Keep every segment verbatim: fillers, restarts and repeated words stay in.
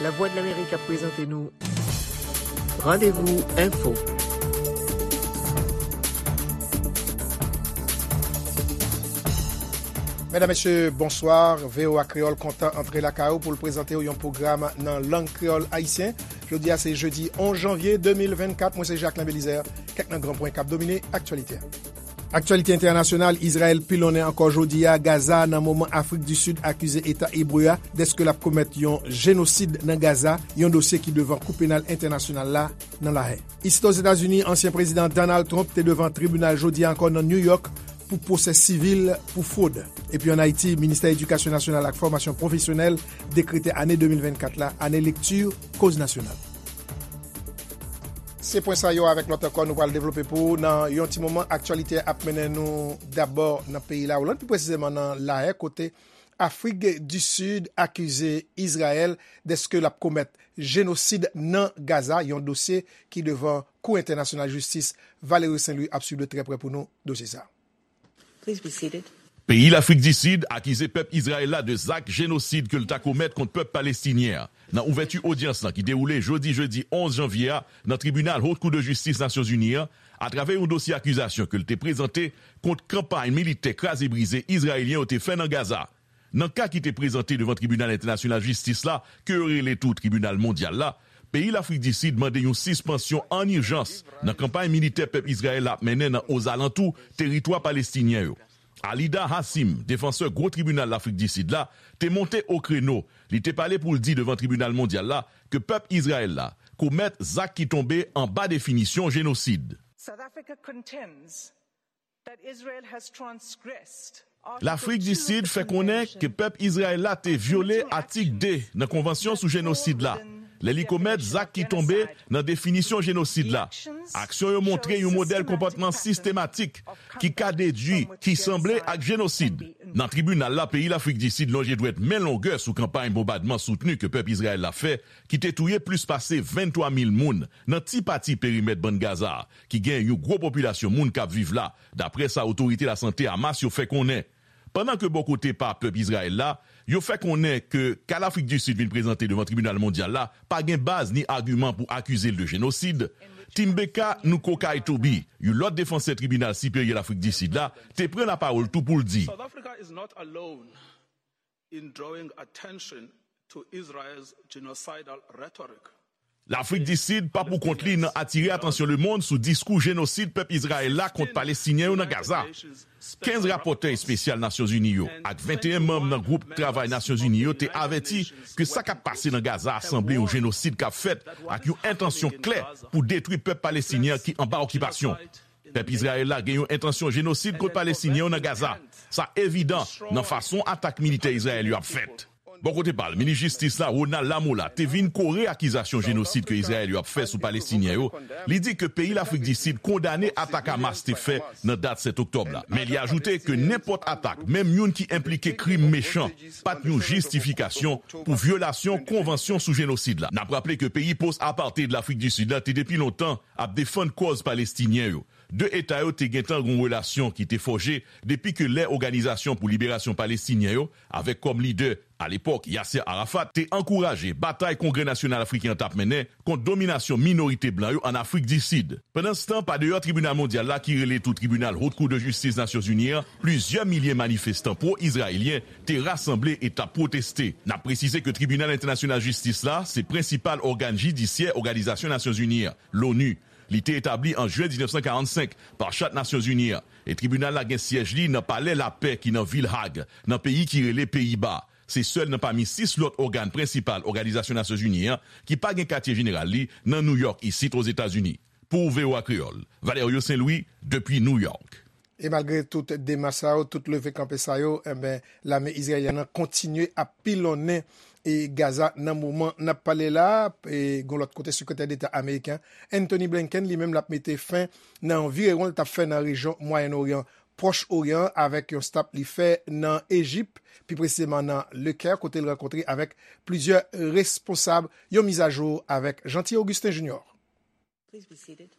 Lavwadlamerik ap prezante nou Randevou Enfo. Medam, mesye, bonswa. V O A Kreyòl kontan antre lakay ou pou l prezante w yon pwogram nan lang kreyòl ayisyen. Jodi a se jedi onz janvye de mil vennkat. Mwen se Jacquelin Belizaire. Kèk nan gran pwen k ap domine aktyalite a. Aktyalite entènasyonal, Izrayèl pilonnen ankò jodi a Gaza nan moman Afrik di Sid akize Eta Ebre a dèske l ap komèt yon jenosid nan Gaza, yon dosye ki devan Kou Penal Entènasyonal la nan Lahè. Isit Ozetazini, ansyen prezidan Donald Trump te devan tribinal jodi a ankò nan New York pou pwosè sivil pou fwod. Epi ann Ayiti, Ministè Edikasyon Nasyonal ak Fòmasyon Pwofesyonèl dekrete ane de mil vennkat la ane lekti koz nasyonal. Se pwen sa yo avèk lòt ankò nou pral devlope pou ou nan yon ti moman. Aktyalite ap mennen nou dabò nan peyi Lawoland, pi presizeman nan Lahè, kote Afrik di Sid akize Izrayèl dèske l ap komèt jenosid nan Gaza, yon dosye ki devan Kou Entènasyonal Jistis. Valerio Saint Louis ap swiv de trè prè pou nou dosye sa a. Please be seated. Peyi Lafrik di Sid akize pèp Izrayèl la de zak jenosid ke l ta komèt kont pèp palestinyen an. Nan ouvèti odyans lan ki dewoule jodi jedi onz janvye a nan tribinal Haute Cour de Justice Nasyonzini an, atravè yon dosye akizasyon ke l te prezante kont kanpay militè kraze brize izrayelyen yo te fè nan Gaza. Nan ka ki te prezante devan Tribinal Entènasyonal Jistis la, ke yo rele tou Tribinal Mondyal la, peyi Lafrik di Sid mande yon sispansyon ann ijans nan kanpay militè pèp Izrayèl la ap mennen nan ozalantou teritwa palestinyen yo. Alida Hassim, defansè gwo tribinal Lafrik di Sid la, te monte o kreno. Li te pale pou l di devan Tribinal Mondyal la ke pèp Izrayèl la komèt zak ki tonbe anba definisyon jenosid. South Africa contends that Israel has transgressed Lafrik di Sid fè konnen ke pèp Izrayèl la te vyole atik de nan Konvansyon sou jenosid la, lè li komèt zak ki tonbe nan definisyon jenosid la. Aksyon yo montre yon modèl konpòtman sistematik ki ka dedui ki sanble ak jenosid. Nan tribinal la, peyi Lafrik di Sid lonje dwèt men longè sou kanpay bonbadman soutni ke pèp Izrayèl la fè, ki te touye plis pase venntwa mil moun nan ti pati perimèt Bann Gaza a, ki gen yon gwo popilasyon moun k ap viv la, daprè sa otorite lasante Hamas yo fè konnen. Pandan ke bò kote pa pèp Izrayèl la, yo fè konnen ke ka Lafrik di Sid vin prezante devan Tribinal Mondyal la pa gen baz ni agiman pou akize l de jenosid, Timbeka Nkokai Tobi, yon lòt defansè Tribinal Siperyè Lafrik di Sid la, te pran lapawòl tou pou l di. South Africa is not alone in drawing attention to Israel's genocidal rhetoric. Lafrik di Sid pa pou kont li nan atire atansyon lemonn sou diskou jenosid pèp Izrayèl la kont Palestinyen yo nan Gaza. Kenz rapòtè espesyal Nasyonzini yo ak venteyen manm nan gwoup travay Nasyonzini yo te avèti ke sa k ap pase nan Gaza a sanble yon jenosid k ap fèt ak yon entansyon klè pou detwi pèp palestinyen ki anba okipasyon. Pèp Izrayèl la gen yon entansyon jenosid kont Palestinyen yo nan Gaza. Sa evidan nan fason atak militè Izrayèl yo ap fèt. Bò kote pa l, minis jistis la, Ronald Lamola, te vin kore akizasyon jenosid ke Izrayèl yo ap fè sou Palestinyen yo. Li di ke peyi Lafrik di Sid kondane atak Hamas te fè nan dat sèt oktòb la. Men li ajoute ke nenpòt atak, menm youn ki enplike krim mechan, pa t yon jistifikasyon pou vyolasyon konvansyon sou jenosid la. N ap raple ke peyi post-apartheid Lafrik di Sid la te depi lontan ap defann kòz Palestinyen yo. De eta yo te gentan gen yon relasyon ki te fòje depi ke lè Òganizasyon pou Liberasyon Palestinyen yo, avèk kòm lidè, alepòk, Yasser Arafat, te ankouraje batay Kongrè Nasyonal Afriken an t ap mennen kont dominasyon minorite blan yo ann Afrik di Sid. Pandanstan, pa deyò Tribinal Mondyal la ki rele tou Tribinal Haute Cour de Justice Nasyonzini an, plizyè milye manifestan pwo-izrayelyen te rasanble e t ap pwoteste. N ap presize ke Tribinal Entènasyonal Jistis la se prensipal ògàn jidisyè Òganizasyon Nasyonzini an, l'ONU. Li te etabli an jen diznèf san karannsenk pa chat Nasyonzini an, e tribinal la gen syèj li nan Palè Lapè ki nan vil Hag, nan peyi ki rele Peyiba. Se sèl nan pami sis lòt ògàn prensipal Òganizasyon Nasyonzini an ki pa gen katye jeneral li nan Nouyòk isit Ozetazini. Pou V O A Kreyòl, Valerio Saint Louis, depi Nouyòk. E malgre tout demach sa yo, tout leve kanpe sa yo, enben, lame izrayelyèn nan kontinye ap pilonnen e Gaza nan moman n ap pale la. E gon lòt kote, sekretè deta ameriken Antony Blinken li menm l ap mete fen nan yon virewon l t ap fè nan rejyon Mwayen Oryan, Pwòch Oryan, avèk yon stop li fè nan Ejip, pi presizeman nan Lekè, kote l rankontre avèk plizyè responsab. Yon mizajou avèk Jeanty Augustin Junior. Please be seated.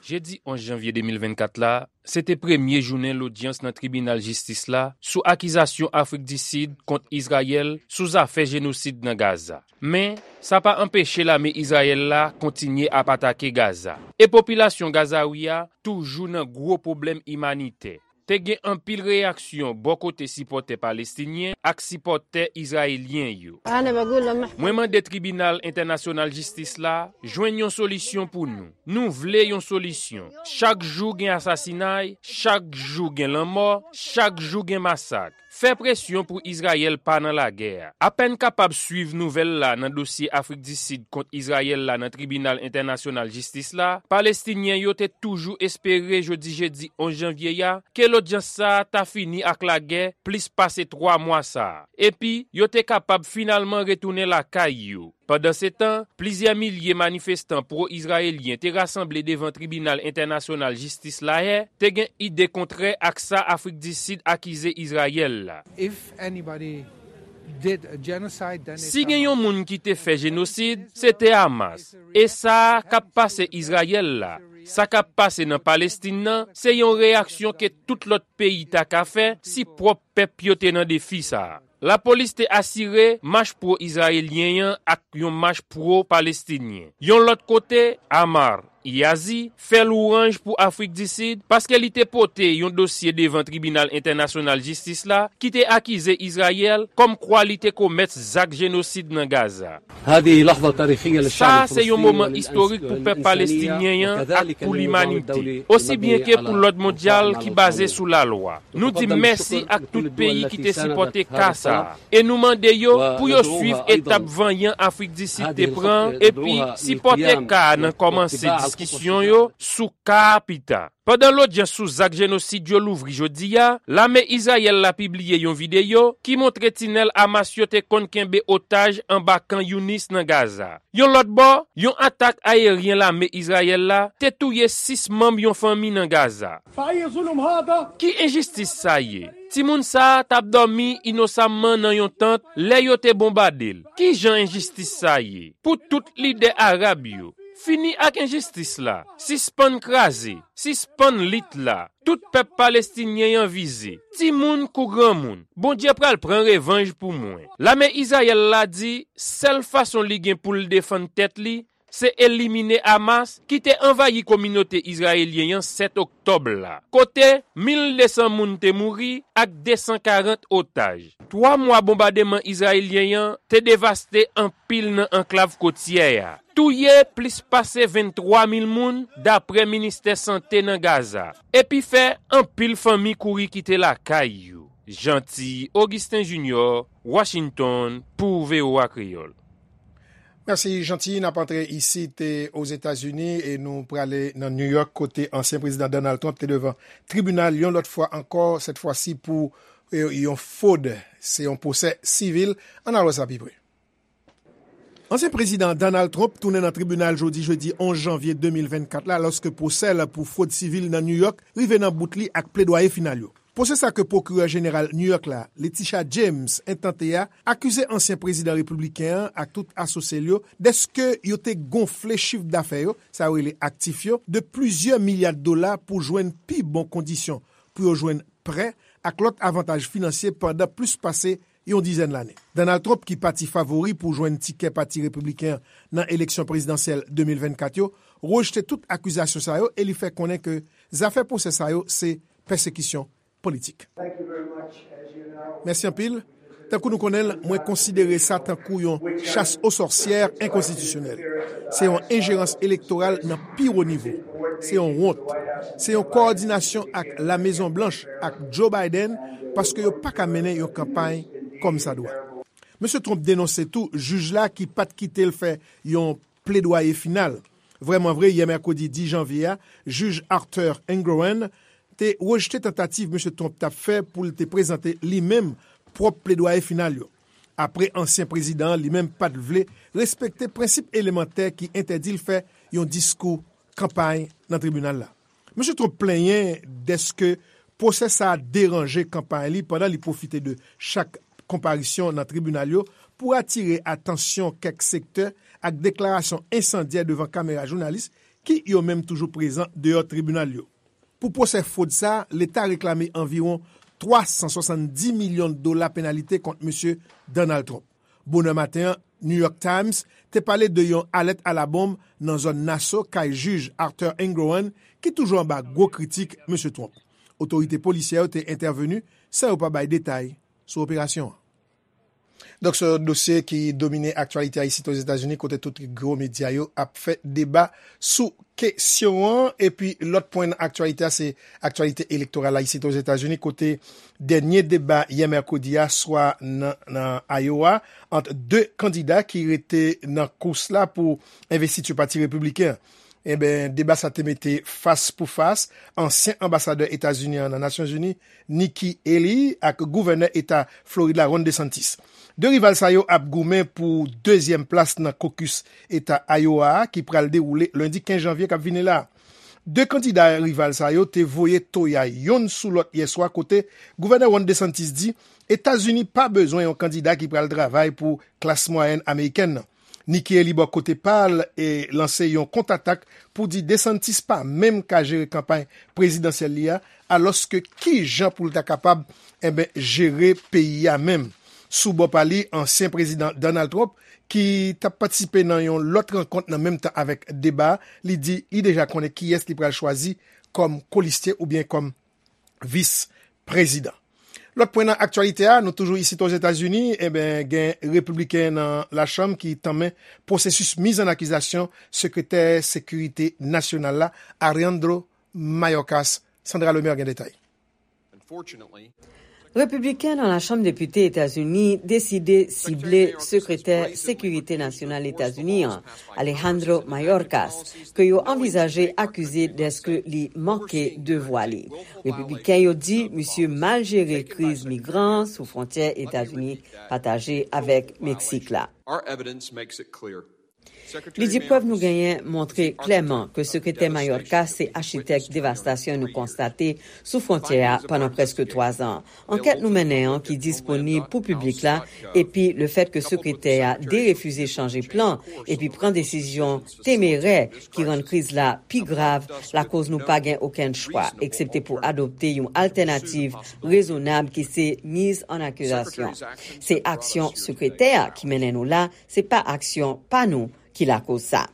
Jedi onz janvye de mil vennkat la, se te premye jounen lodyans nan tribinal jistis la sou akizasyon Afrik di Sid kont Izrayèl sou zafè jenosid nan Gaza. Men, sa pa anpeche lame Izrayèl la kontinye ap atake Gaza. E popilasyon Gazawi a toujou nan gwo pwoblèm imanitè. Te gen anpil reyaksyon bò kote sipòtè palestinyen ak sipòtè izrayelyen yo. Mwen mande Tribinal Entènasyonal Jistis la jwenn yon solisyon pou nou. Nou vle yon solisyon. Chak jou gen asasinay, chak jou gen lanmò, chak jou gen masak. Fè presyon pou Izrayèl pa nan lagè a. Apèn kapab swiv nouvèl la nan dosye Afrik di Sid kont Izrayèl la nan Tribinal Entènasyonal Jistis la, Palestinyen yo te toujou espere jodi jedi onz janvye a ke lodyans sa a ta fini ak lagè plis pase twa mwa sa a, epi yo te kapab finalman retounen lakay yo. Pandansetan, plizyè milye manifestan pwo-izrayelyen te rasanble devan Tribinal Entènasyonal Jistis Lahè te gen ide kontrè ak sa Afrik di Sid akize Izrayèl la. If anybody did a genocide, then it's Si gen Hamas. Yon moun ki te fè jenosid, se te Hamas. E sa k ap pase Izrayèl la, sa k ap pase nan Palestin nan, se yon reyaksyon ke tout lòt peyi ta ka fè si pwòp pèp yo te nan defi sa a. Lapolis te asire mach pwo-izrayelyen an ak yon mach pwo-palestinyen. Yon lòt kote, Ammar Yazi fè lwanj pou Afrik di Sid paske li te pote yon dosye devan Tribinal Entènasyonal Jistis la ki te akize Izrayèl kòmkwa li te komèt zak jenosid nan Gaza. هذه لحظة تاريخية للشعب Sa se yon الفلسطيني moman istorik pou pèp palestinyen an ak pou limanite, osi byen ke pou lòd mondyal ki baze sou lalwa. Nou di mèsi ak tout peyi ki te sipòte ka sa a, e nou mande yo pou yo swiv etap vanyan Afrik di Sid te pran, epi sipòte ka a nan kòmanse diskisyon yo sou ka a pita. Pandan lodyans sou zak jenosid yo louvri jodi a, lame Izrayèl la pibliye yon videyo ki montre tinèl Hamas yo te konn kenbe otaj anba kan Younis nan Gaza. Yon lòt bò, yon atak ayeryen lame Izrayèl la te touye sis manm yon fanmi nan Gaza. Ki enjistis sa ye? Timoun sa a t ap dòmi inosamman nan yon tant lè yo te bonbade l. Ki jan enjistis sa ye? Pou tout lidè arab yo, fini ak enjistis la, sispann kraze, sispann lit la. Tout pèp palestinyen an vize, timoun kou granmoun. Bondye pral pran revanj pou mwen. Lame Izrayèl la di sèl fason li gen pou l defann tèt li, se elimine Hamas ki te anvayi kominote izrayelyen an sèt oktòb la, kote mil de san moun te mouri ak de san karant otaj. Twa mwa bonbademan izrayelyen an te devaste anpil nan anklav kotyè a, touye plis pase venntwa mil moun, dapre Ministè Sante nan Gaza, epi fè anpil fanmi kouri kite lakay yo. Jeanty Augustin Junior, Washington, pou V O A Kreyòl. Mèsi, Jeanty. N ap antre isit, e, Ozetazini, e nou prale nan New York, kote ansyen prezidan Donald Trump te devan tribinal yon lòt fwa ankò, sèt fwa si pou, e, yon fwod. Se yon pwosè sivil. Ann al wè sa pi pre. Ansyen prezidan Donald Trump tounen nan tribinal jodi jedi onz janvye de mil vennkat la, lòske pwosè l pou fwod sivil nan New York rive nan bout li ak pledwaye final yo. Pwosè sa ke pwokirè jeneral New York la, Letitia James, entante a, akize ansyen prezidan repibliken an ak tout asosye l yo dèske yo te gonfle chif dafè yo, sa yo rele aktif yo, de plizyè milya dola pou jwenn pi bon kondisyon pou yo jwenn prè ak lòt avantaj finansye pandan plis pase yon dizèn lane. Donald Trump, ki pati favori pou jwenn tikè Pati Repibliken an nan eleksyon prezidansyèl de mil vennkat yo, rejte tout akizasyon sa yo e li fè konnen ke zafè pwosè sa yo se pèsekisyon politik. Mèsi anpil. Tankou nou konnen l, mwen konsidere sa tankou yon chas o sòsyè enkonstitisyonèl. Se yon enjerans elektoral nan pi wo nivo. Se yon wont. Se yon kowòdinasyon ak Lamezon Blanch ak Joe Biden paske yo pa ka mennen yon kanpay kòmsadwa. Mesye Trump denonse tou jij la ki pa t kite l fè yon pledwaye final. Vrèmanvre, yè mèkredi dis janvye a, jij Arthur Engoron te rejte tantativ Mesye Trump t ap fè pou l te prezante li menm pwòp pledwaye final yo. Apre ansyen prezidan an li menm pa t vle respekte prensip elemantè ki entèdi l fè yon diskou kanpay nan tribinal la. Mesye Trump plenyen dèske pwosè sa a deranje kanpay li pandan li pwofite de chak konparisyon nan tribinal yo pou atire atansyon kèk sektè ak deklarasyon ensandyè devan kamera jounalis ki yo menm toujou prezan deyò tribinal yo. Pou pwosè fwod sa a, Leta reklame anviwon twa san swasanndis milyon dola penalite kont Mesye Donald Trump. Bonè maten an, New York Times te pale de yon alèt alabonm nan zòn Nassau kay jij Arthur Engoron, ki toujou anba gwo kritik Mesye Trump. Otorite polisyè yo te entèveni san yo pa bay detay sou operasyon an. Donk, se yon dosye ki domine aktyalite a isit Ozetazini, kote tout gwo medya yo ap fè deba sou kesyon an. Epi, lòt pwen nan aktyalite a, se aktyalite elektoral la isit Ozetazini, kote dènye deba yè mèkredi a swa nan, nan Iowa, ant de kandida ki rete nan kous la pou envestiti pati repibliken an. Enben, deba sa te mete fas pou fas ansyen anbasadè Etazini an nan Nasyonzini, Nikki Haley, ak gouvènè eta Florid la, Ron DeSantis. De rival sa yo ap goumen pou dezyèm plas nan kokis eta Iowa a, ki pral dewoule lendi kenz janvye k ap vini la. De kandida rival sa yo te voye toya youn sou lòt yè swa, kote gouvènè Ron DeSantis di Etazini pa bezwen yon kandida ki pral travay pou klas mwayèn amerikèn nan. Nikki Haley, bò kote pa l, e lanse yon kontatak pou di DeSantis pa menm ka jere kanpay prezidansyèl li a, alòske ki jan pou l ta kapab, enben, jere peyi a menm? Sou bò pa li, ansyen prezidan Donald Trump, ki t ap patisipe nan yon lòt rankont nan menm tan avèk deba a, li di li deja konnen kiyès li pral chwazi kòm kolistye oubyen kòm vis prezidan. Lòt pwen nan aktyalite a, nou toujou isit Ozetazini, enben, gen repibliken nan Lachanm ki tanmen pwosesis miz an akizasyon sekretè sekirite nasyonal la, Alejandro Mayorkas. Sandra Lemaire gen detay. Repibliken nan Lachanm Depite Etazini deside sible sekretè sekirite nasyonal Etazini an, Alejandro Mayorkas, ke yo anvizaje akize dèske li manke devwa li. Repibliken yo di misye mal jere kriz migran sou fwontyè Etazini pataje avèk Meksik la. Li di prèv nou genyen montre klèman ke sekretè Mayorkas se achitèk devastasyon nou konstate sou fwontyè a pandan prèske twa zan. Ankèt nou mennen an ki disponib pou piblik la, epi lefèt ke sekretè a derefize chanje plan epi pran desizyon temerè ki rann kriz la pi grav, lakoz nou pa gen okenn chwa, eksepte pou adopte yon altènativ rezonab ki se miz an akizasyon. Se aksyon sekretè a ki mennen nou la, se pa aksyon pa nou ki lakoz sa.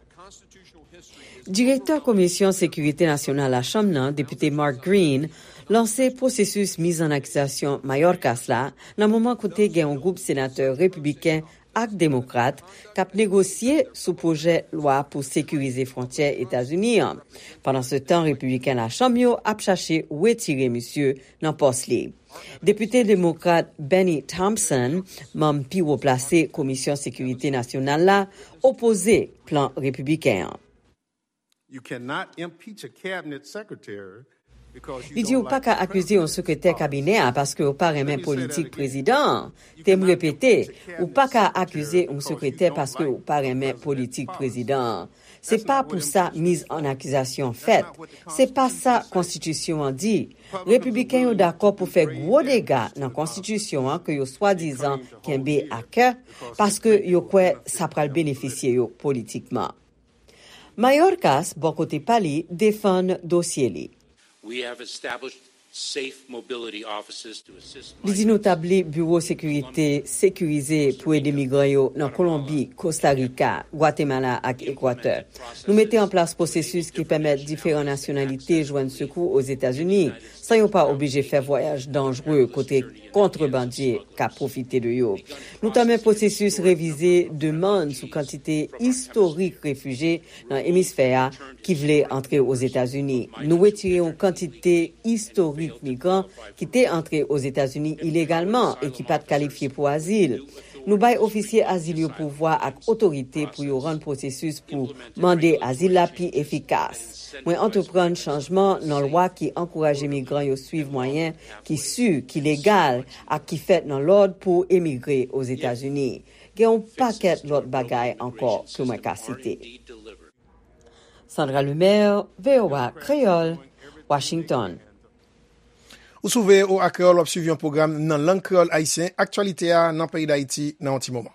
Direktè Komisyon Sekirite Nasyonal Lachanm nan, Depite Mark Green, lanse pwosesis miz an akizasyon Mayorkas la nan moman kote gen yon gwoup senatè repibliken ak demokrat k ap negosye sou pwojè lwa pou sekirize fwontyè Etazini an. Pandansetan, repibliken Lachanm yo ap chache retire misye nan pòs li. Depite demokrat Bennie Thompson, manm pi wo plase Komisyon Sekirite Nasyonal la, opoze plan repibliken an. You cannot impeach a cabinet secretary because you Li di ou don't pa like ka the akize yon president. Sekretè kabinè a paske ou pa renmen politik prezidan an. Te m repete, ou pa ka akize yon sekretè paske ou pa renmen politik prezidan an. Se pa pou sa miz an akizasyon fèt. Se pa sa konstitisyon an di. Repibliken yo dakò pou fè gwo dega nan konstitisyon an ke yo swadizan kenbe a kè paske yo kwè sa pral benefisye yo politikman. Mayorkas, bò kote pa li, defann dosye li. We have established safe mobility offices to assist Li di nou tabli biwo sekirite sekirize pou ede migran yo nan Kolonbi, Kosta Rika, Gwatemala ak Ekwatè. Nou mete an plas pwosesis ki pèmèt diferan nasyonalite jwenn sekou Ozetazini, san yo pa oblije fè vwayaj danjre kote kontrebandye ka pwofite de yo. Nou tanmen pwosesis revize demann sou kantite istorik refijye nan emisfè a ki vle antre Ozetazini. Nou retire yon kantite istorik migran ki te antre Ozetazini ilegalman e ki pa t kalifye pou azil. Nou bay ofisye azil yo pouvwa ak otorite pou yo rann pwosesis pou mande azil la pi efikas. Mwen antreprann chanjman nan lwa ki ankouraje migran yo swiv mwayen ki si, ki legal ak ki fèt nan lòd pou emigre Ozetazini. Gen yon pakèt lòt bagay ankò ke mwen ka site. Sandra Lemaire, V O A Kreyòl, Washington. Ou sou V O A Kreyòl, w ap swiv yon pwogram nan lang kreyòl ayisyen, aktyalite a nan peyi Dayiti nan yon ti moman.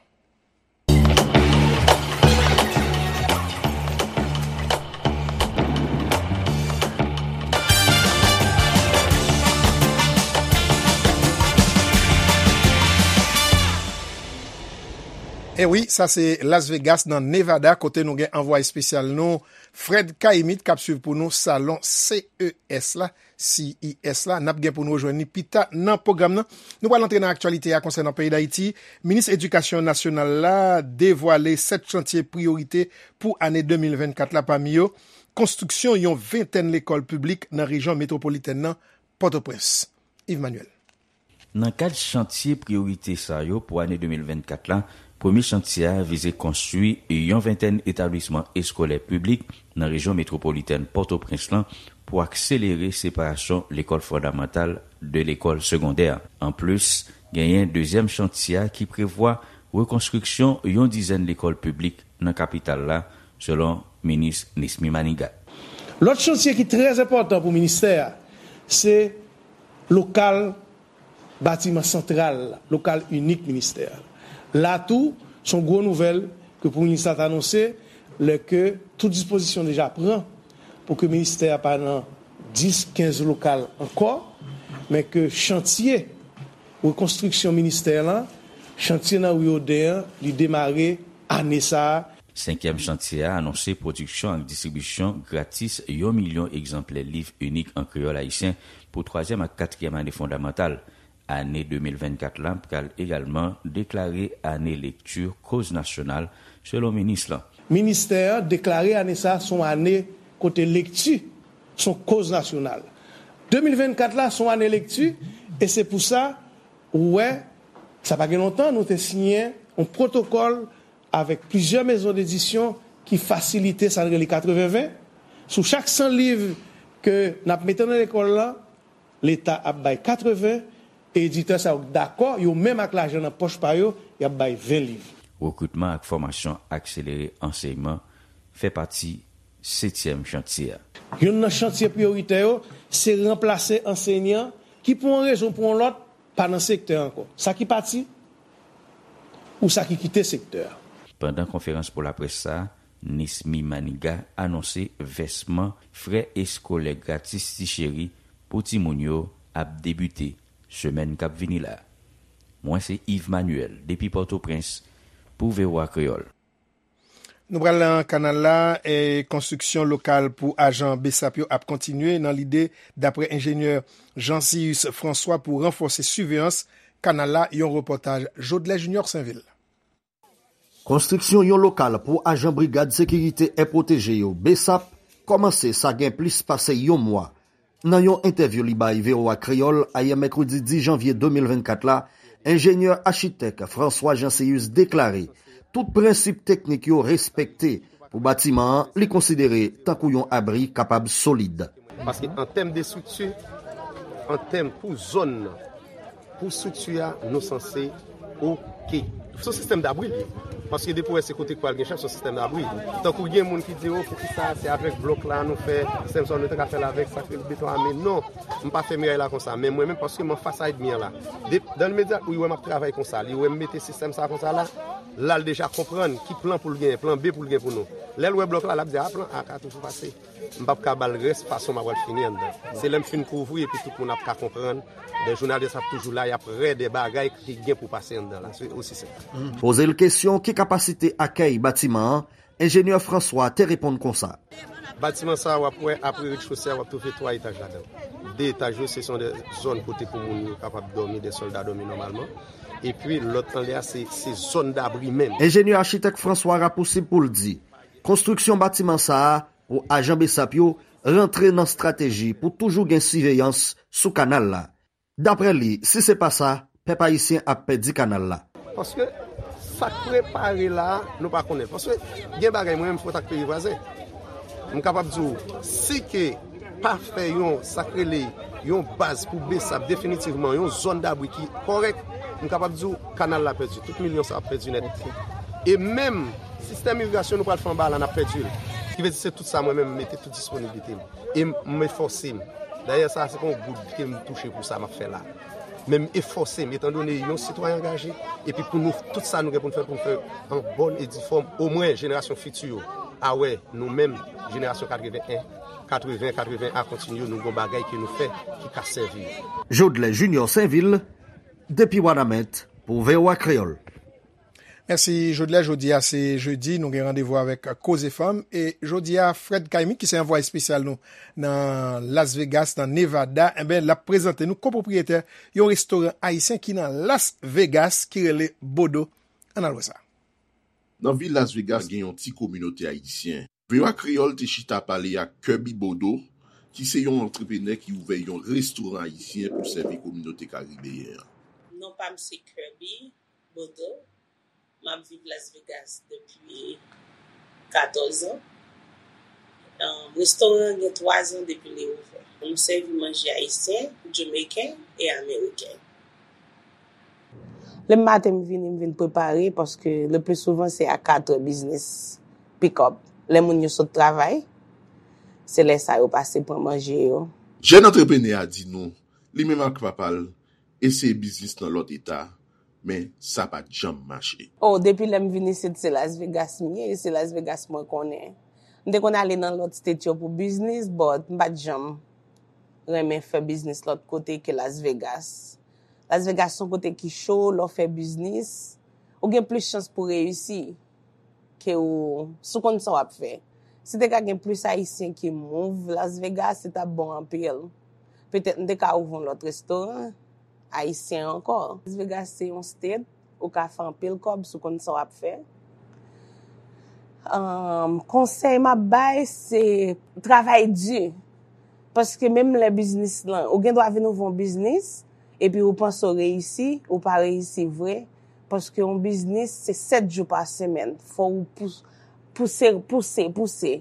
E wi, sa se Las Vegas nan Nevada, kote nou gen anvwaye espesyal nou, Fred Caïmite, k ap swiv pou nou salon C E S la, C E S la. N ap gen pou nou rejwenn li pita nan pwogram nan. Nou pral antre nan aktyalite a konsènan peyi Dayiti. Minis Edikasyon Nasyonal la devwale sèt chantye priyorite pou ane de mil vennkat la, pami yo, konstriksyon yon ventèn lekòl piblik nan rejyon metwopolitèn nan, Pòtoprens. Yves Manuel. Nan kad chantye priyorite sa yo pou ane de mil vennkat la, premye chantye a vize konstwi yon ventèn etablisman eskolè piblik nan rejyon metwopolitèn Pòtoprens lan pou akselere separasyon lekòl fondamantal de lekòl segondè. Anplis, genyen dezyèm chantye a ki prevwa rekonstriksyon yon dizèn lekòl piblik nan kapital la, selon minis Nesmy Manigat. Lòt chantye ki trè enpòtan pou ministè a, se lokal batiman santral, lokal inik ministè a. La tou, se yon gwo nouvèl ke premye minis la t anonse, lè ke tout dispozisyon deja pran pou ke ministè a pa nan dis, kenz lokal ankò, men ke chantye rekonstriksyon ministè lan, chantye nan ri Oden an, li demare ane sa a. Senkyèm chantye a anonse pwodiksyon ak distribisyon gratis yon milyon egzanplè liv inik an kreyòl ayisyen pou twazyèm ak katriyèm ane fondamantal. Ane de mil vennkat la pral egalman deklare ane lekti koz nasyonal, selon minis lan. Ministè an deklare ane sa a se yon ane kote lekti se yon koz nasyonal. De mil vennkat la se yon ane lekti, e se pou sa, ou wè, sa pa gen lontan, nou te siyen yon pwotokòl avèk plizyè mezon dedisyon ki fasilite sa n rele katreven ven. Sou chak san liv ke n ap mete nan lekòl la, Leta ap bay katreven, e editè sa yo dakò, yo menm ak lajan nan pòch pa yo, y ap bay ven liv. Rekritman ak fòmasyon akselere ansèyman fè pati setyèm chantye a. Youn nan chantye priyoritè yo, se ranplase ansèyan ki pou yon rezon pou yon lòt pa nan sektè ankò. Sa ki pati, ou sa ki kite sektè a. Pandan konferans pou laprès sa a, Nesmy Manigat anonse vèsman frè eskolè gratis Ti Cheri pou timoun yo ap debite semèn k ap vini la. Mwen se Yves Manuel depi Pòtoprens pou V O A Kreyòl. Nou pral nan kanal la, e konstriksyon lokal pou ajan BSAP yo ap kontinye nan lide, dapre enjenyè Jean Cius François, pou ranfòse siveyans kanal la, yon repòtaj Jodlè Junior Sainvil. Konstriksyon yon lokal pou ajan Brigad Sekirite È Pwoteje yo, BSAP, kòmanse sa gen plis pase yon mwa. Nan yon entèvyou li bay V O A Kreyòl ayè mèkredi dis janvye de mil vennkat la, enjenyè achitèk François Jean Cius deklare tout prensip teknik yo respekte pou batiman an li konsidere tankou yon abri kapab solid. Paske an tèm de estrikti, an tèm pou zòn nan, pou estrikti a, nou sanse oke. Se yon sistèm dabri li ye. Paske depi w wè se kote k pral gen chèf, se yon sistèm dabri. Tankou gen moun ki di, o, poukisa se avèk blòk la nou fè sistèm sa, nou te ka fè l avèk sa k rele beton ame. Non, m pa fè miray la konsa. Men mwen menm, paske m anfas a ènmi an la. De, dan limedya, li wè m ap travay konsa, li wè m mete sistèm sa konsa la, la l deja konprann ki plan pou l genyen, plan B pou l gen pou nou. Lè l wè blòk la, l ap di, a, plan A ka toujou pase. M p ap ka ba l rès fason m ap pral fini anndan. Se lè m fin kouvri epi tout moun ap ka konprann. Dè jounalis ap toujou la, y ap rè dè bagay ki gen pou pase anndan la. Se osi senp. Poze l kesyon ki kapasite akèy batiman an, enjenyè François te reponn konsa. Batiman sa a, w ap wè, apre rechosè a, w ap twouve twa etaj ladan l. De etaj yo, se son de zòn kote pou moun yo kapab dòmi, de sòlda dòmi nòmalman. Epi, lòt anlè a, se, se zòn dabri menm. Enjenyè achitèk François rapousib pou l di, konstriksyon batiman sa a pou ajan BSAP yo rantre nan estrateji pou toujou gen siveyans sou kanal la. Dapre li, si se pa sa, pèp ayisyen ap pèdi kanal la. Paske sa k prepare la a, nou pa konnen. Paske gen bagay mwen menm fòt ak peyi vwazen. M kapab di w, si ke pa fè yon, sa k rele, yon baz pou BSAP definitivman, yon zòn dabri ki kòrèk, m kapab di w, kanal la pèdi. Tout milyon sa ap pèdi nèt. E menm sistèm irigasyon nou pral fè anba la, n ap pèdi l. Ki vle di se tout sa mwen menm m mete tout disponiblite m. E m, m efòse m. Dayè sa, se pa yon goud ke m touche pou sa m ap fè la. Men m efòse m, etandone yon sitwayen angaje, epi pou nou, tout sa nou gen pou n fè, pou n fè an bòn e di fòm, omwen jenerasyon fiti yo a wè nou menm, jenerasyon katreven en, katreven, katreven a kontinye, nou gon bagay ke nou fè ki ka sèvi yo. Jodlè Junior Sainvil, depi Wanament, pou V O A Kreyòl. Mèsi, Jodlè. Jodi a se jedi, nou gen randevou avèk Koze Fanm. E jodi a, Fred Caimi, ki se anvwaye espesyal nou nan Las Vegas, nan Nevada, enben, l ap prezante nou kopwopriyetè yon restoran ayisyen ki nan Las Vegas, ki rele Bodo. Ann al wè sa. Nan vil Las Vegas, gen yon ti kominote ayisyen. V O A Kreyòl te chita pale ak Kirby Bodo, ki se yon antreprenè ki ouvè yon restoran ayisyen pou sèvi kominote karibeyen an. Non pa m se Kirby Bodo. M ap viv Las Vegas depi katòz an. Um, restoran an gen twa zan depi li ouvè. Nou sèvi manje ayisyen, jamaiken e ameriken. Lè m maten m vini, m vin prepare, paske le pli souvan se a katrè biznis pick up. Lè moun yo sot travay, se lè sa yo pase pran manje yo. Jèn antreprenè a di nou, li menm ak papa l eseye biznis nan lòt eta, men sa pa t janm mache. Oh, depi lè m vin isit, se Las Vegas m ye, e se Las Vegas mwen konnen. M te konn ale nan lòt state yo pou biznis, but m pa t janm renmen fè biznis lòt kote ke Las Vegas. Las Vegas se yon kote ki cho, lè w fè biznis, ou gen plis chans pou reyisi ke ou, si w konn sa w ap fè. Si te ka gen plis Ayisyen ki move Las Vegas, se t ap bon anpil. Petèt m te ka ouvri yon lòt restoran ayisyen ankò. Las Vegas se yon state, ou ka fè anpil kòb si w konn sa w ap fè. Um, konsèy m ap bay, se travay di. Paske menm lè biznis lan, ou gen dwa vin ouvri yon biznis, epi ou panse w reyisi, ou pa reyisi vre. Paske yon biznis, se sèt jou pa semèn. Fò w pous-, pouse, pouse, pouse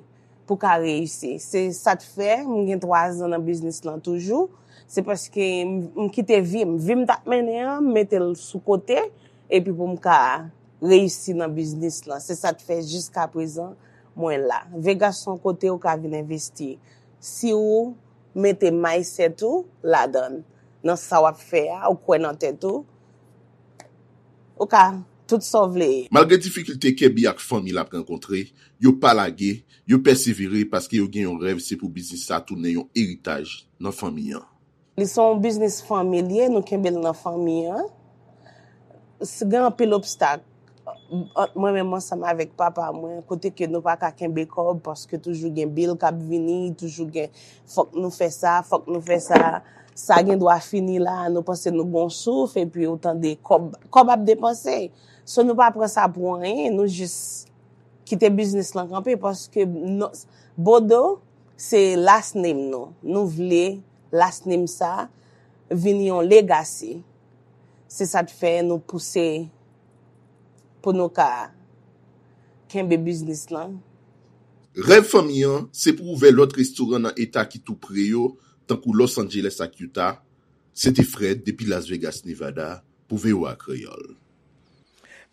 pou w ka reyisi. Se sa k fè m gen twa zan nan biznis lan toujou. Se paske m, m kite vi m. Vi m t ap mennen an, m mete l sou kote, epi pou m ka reyisi nan biznis lan. Se sa k fè jiska prezan mwen la. Vegas se yon kote ou ka vin envesti. Si ou mete mindset ou ladan, nan sa w ap fè a, ou kwè nan tèt ou, ou ka tout sa w vle. Malgre difikilte Kirby ak fanmi l ap rankontre, yo pa lage, yo pèsevere paske yo gen yon rèv, se pou biznis sa tounen yon eritaj nan fanmi an. Li se yon biznis fanmi l ye, nou kenbe l nan fanmi an. S-, gen anpil obstak ant mwen menm ansanm avèk papa mwen, kote ke nou pa ka kenbe kòb paske toujou gen bil k ap vini, toujou gen fòk nou fè sa, fòk nou fè sa. Sa gen dwa fini la, nou panse nou gon souf, epi ou tande kòb, kòb ap depanse. So nou pa pran sa pou anyen, nou jis kite biznis lan kanpe paske non, Bodo se last name nou. Nou vle last name sa vin yon legacy. Se sa k fè nou pouse pou nou ka kenbe biznis lan. Rèv fanmi an, se pou ouvè lòt restoran nan eta ki tou pre yo, tankou Los Angeles ak Utah. Se te Fred depi Las Vegas, Nevada, pou V O A Kreyòl.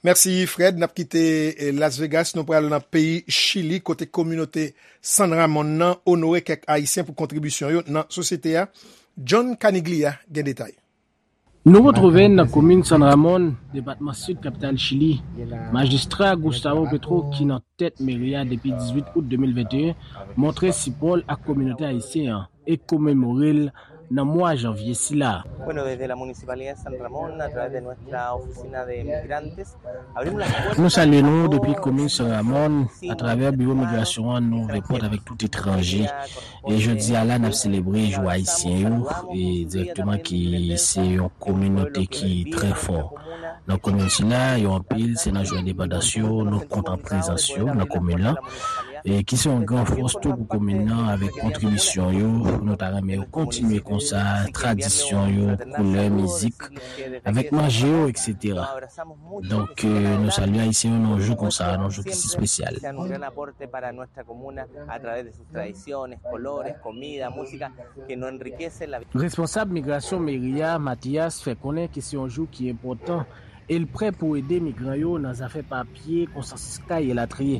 Mèsi, Fred. N ap kite, eh, Las Vegas, nou pral nan peyi Chili, kote kominote San Ramon nan onore kèk Ayisyen pou kontribisyon yo nan sosyete a. John Caniglia gen detay. Nou retwouve n nan komin San Ramon, depatman Sid kapital Chili. Majistra Gustavo Petro, ki nan tèt meri a depi dizuit out de mil venteyen, montre sipò l ak kominote ayisyen an e komemore l nan mwa janvye sila. Bueno, desde la Municipalidad de San Ramón, a través de nuestra oficina de migrantes, abrimos las puertas. Nou salye nou depi komin San Ramon, atravè biwo migrasyon an, nou ouvè pòt avèk tout etranje. E jodi a la, n ap selebre jou ayisyen yo, e dirèkteman ki se yon kominote ki trè fò. Nan komin sila, yo anpil, se nan jou endepandans yo, nou kontan prezans yo nan komin lan. E ki se yon gran fòs tou pou komin nan, avèk kontribisyon yo, nou ta renmen yo kontinye konsa, tradisyon yo, koulè, mizik, avèk manje yo, et cetera. Donk, eh, nou salye Ayisyen yo nan yon jou konsa, nan yon jou ki si espesyal. Sean un gran aporte para nuestra comuna a través de sus tradiciones, colores, comida, música, que nos enriquece la vida. Responsab migrasyon meri a, Mathias, fè konnen ke se yon jou ki enpòtan e l prè pou ede migran yo nan zafè papye, konsa kay elatriye.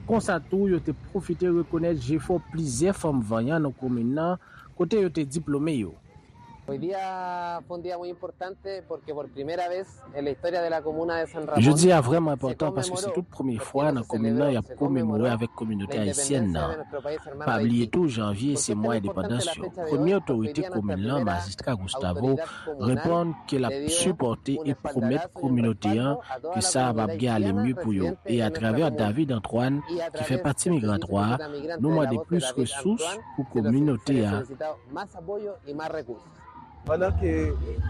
Konsa tou, yo te pwofite rekonèt jefò plizyè fanm vanyan nan komin nan, kote yo te diplome yo. Hoy día fue un día muy importante porque por primera vez en la historia de la comuna de San Ramón. Jodi a vrèman enpòtan paske se tout premye fwa nan komin nan y ap komemore avèk kominote ayisyèn nan. Pa bliye tou, janvye se mwa endepandans yo. Premye otorite komin lan, Majistra Gustavo, reponn ke l ap sipòte e pwomèt kominote an ke sa a p ap gen ale mye pou yo. E atravè David Antoine, ki fè pati Migra twa, nou mande plis resous pou kominote a. Pandan ke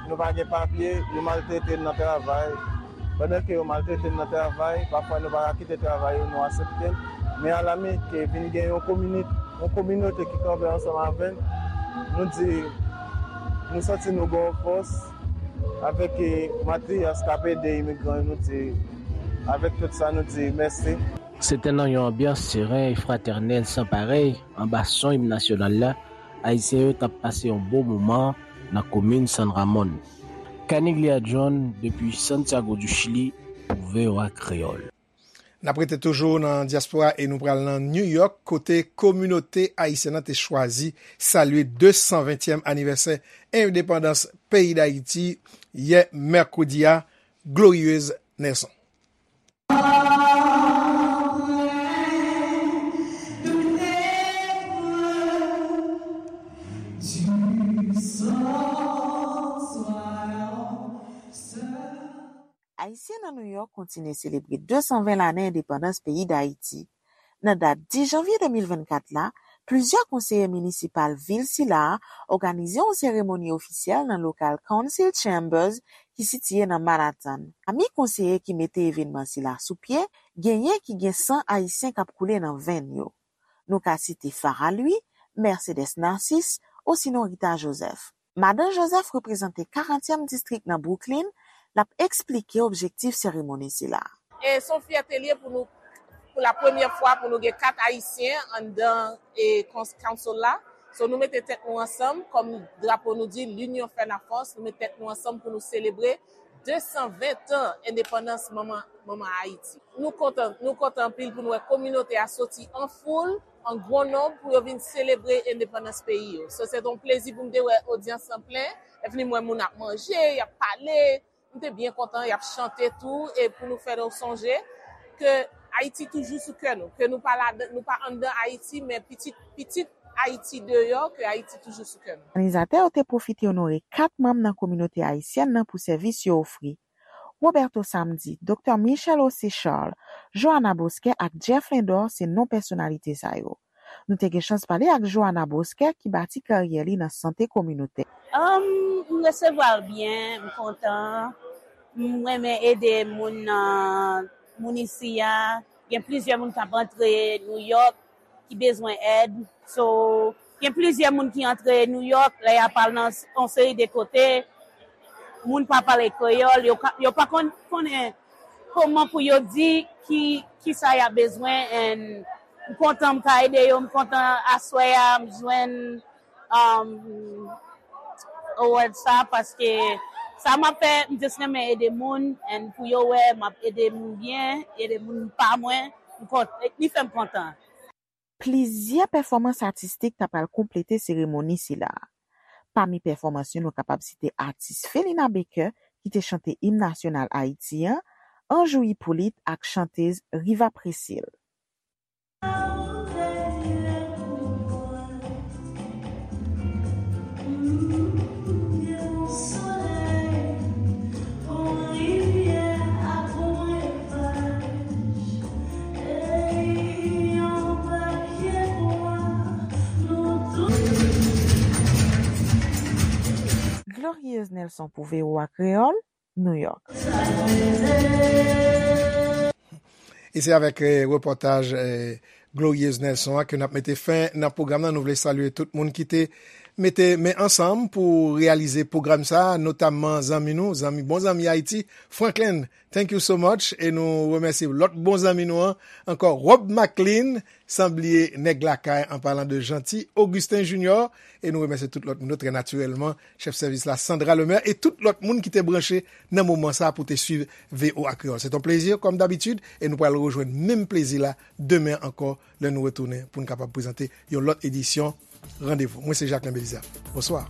nou pa gen papye, yo maltrete n nan travay. Pandan ke yo maltrete n nan travay, pafwa nou pa ka kite travay yo, nou aksepte l. Men alami ke vin gen yon komini-, yon kominote ki kanpe ansanm avè n, nou di, nou santi nou gen yon fòs avèk, eh, Mathias k ap ede imigran yo, nou di, avèk tout sa, nou di mèsi. Se te nan yon anbyans seren e fratènèl san parèy, anba son im nasyonal la, Ayisyen yo t ap pase yon bon moman nan komin San Ramon. Caniglia John, depi Santiago du Chili, pou V O A Kreyòl. N ap rete toujou nan dyaspora e nou pral nan New York, kote kominote ayisyèn nan te chwazi salye de san ventyèm anivèsè endepandans peyi Dayiti yè mèkredi a. Glorieuse Nelson. Ayisyen nan New York kontinye selebre de san ven lane endepandans peyi Dayiti. Nan dat dis janvye de mil vennkat la, plizyè konseye minisipal vil sila a òganize yon seremoni ofisyèl nan lokal Council Chambers ki sitiye nan Manhattan. Pami konseye ki mete evènman sila sou pye, genyen ki gen san ayisyen k ap koule nan venn yo. Nou ka site Farah Louis, Mercedes Narcisse, osinon Rita Joseph. Madan Joseph reprezante karantyèm distrik nan Brooklyn, l ap eksplike objektif seremoni sila. E se yon fyète l ye pou nou, pou la premyè fwa, pou nou gen kat Ayisyen anndan, e, kons-, council la. So, nou mete tèt nou ansanm, kòm drapo nou di, l'union fait la force, nou mete tèt nou ansanm pou nou selebre de san ven tan endepandans manman, manman Ayiti. Nou kontan, nou kontan anpil pou nou wè kominote a soti an foul, an gwo nonb pou yo vin selebre endepandans peyi yo. So, se te yon plezi pou m te wè odyans lan plen, epi m wè moun ap manje, y ap pale, m te byen kontan, y ap chante tou, e pou nou fè nou sonje ke Ayiti toujou sou kè nou, ke nou pa ladan, nou pa anndan Ayiti, men pitit, pitit Ayiti deyò, ke Ayiti toujou sou kè nou. Òganizatè yo te pwofite onore kat manm nan kominote ayisyèn nan pou sèvis yo ofri. Roberto Samedi, Doktè Michel José Charles, Johanna Bosquet ak Jeff Lindor se non pèsonalite sa yo. Nou te gen chans pale ak Johanna Bosquet ki bati karyè li nan sante kominotè. Um, m resevwa l byen, m kontan. M renmen ede moun nan, moun isi a. Gen plizyè moun k ap antre New York ki bezwen èd. So, gen plizyè moun ki antre New York, lè y ap al nan s-, yon seri de kote, moun pa pale kreyòl, yo ka, yo pa konn, konnen kòman pou yo di ki, ki sa y ap bezwen, and m kontan m ka ede yo, m kontan aswè a, m jwenn, um, award sa, paske sa m ap fè, m just renmen ede moun, and pou yo wè m ap ede moun byen, ede moun pa mwen, m kont-, li fè m kontan. Plizyè pèfòmans atistik ta pral konplete seremoni sila a. Pami pèfòmans yo, nou kapab site atis Felina Baker, ki te chante im nasyonal Ayiti an, Anjou Hyppolite ak chantez Riva Précile. Glorieuse Nelson pou V O A Kreyòl, New York. E se avèk, eh, repòtaj, eh, Glorieuse Nelson an ke n ap mete fen nan pwogram nan. Nou vle salye tout moun ki te mete men ansanm pou reyalize pwogram sa a, notamman zanmi nou, zanmi, bon zanmi Ayiti, Franklin. Thank you so much. E nou remèsye lòt bon zanmi nou an ankò, Rob McLean, san bliye nèg lakay, an palan de Jeanty, Augustin Junior, e nou remèsye tout lòt moun yo, trè natirèlman, chèf sèvis la, Sandra Lemaire, e tout lòt moun ki te branche nan moman sa a pou te swiv V O A Kreyòl. Se yon plezi, kòm dabitid, e nou pral rejwenn menm plezi la demen ankò, lè nou retounen pou n kapab prezante yon lòt edisyon Randevou. Mwen se Jacquelin Belizaire. Bonswa.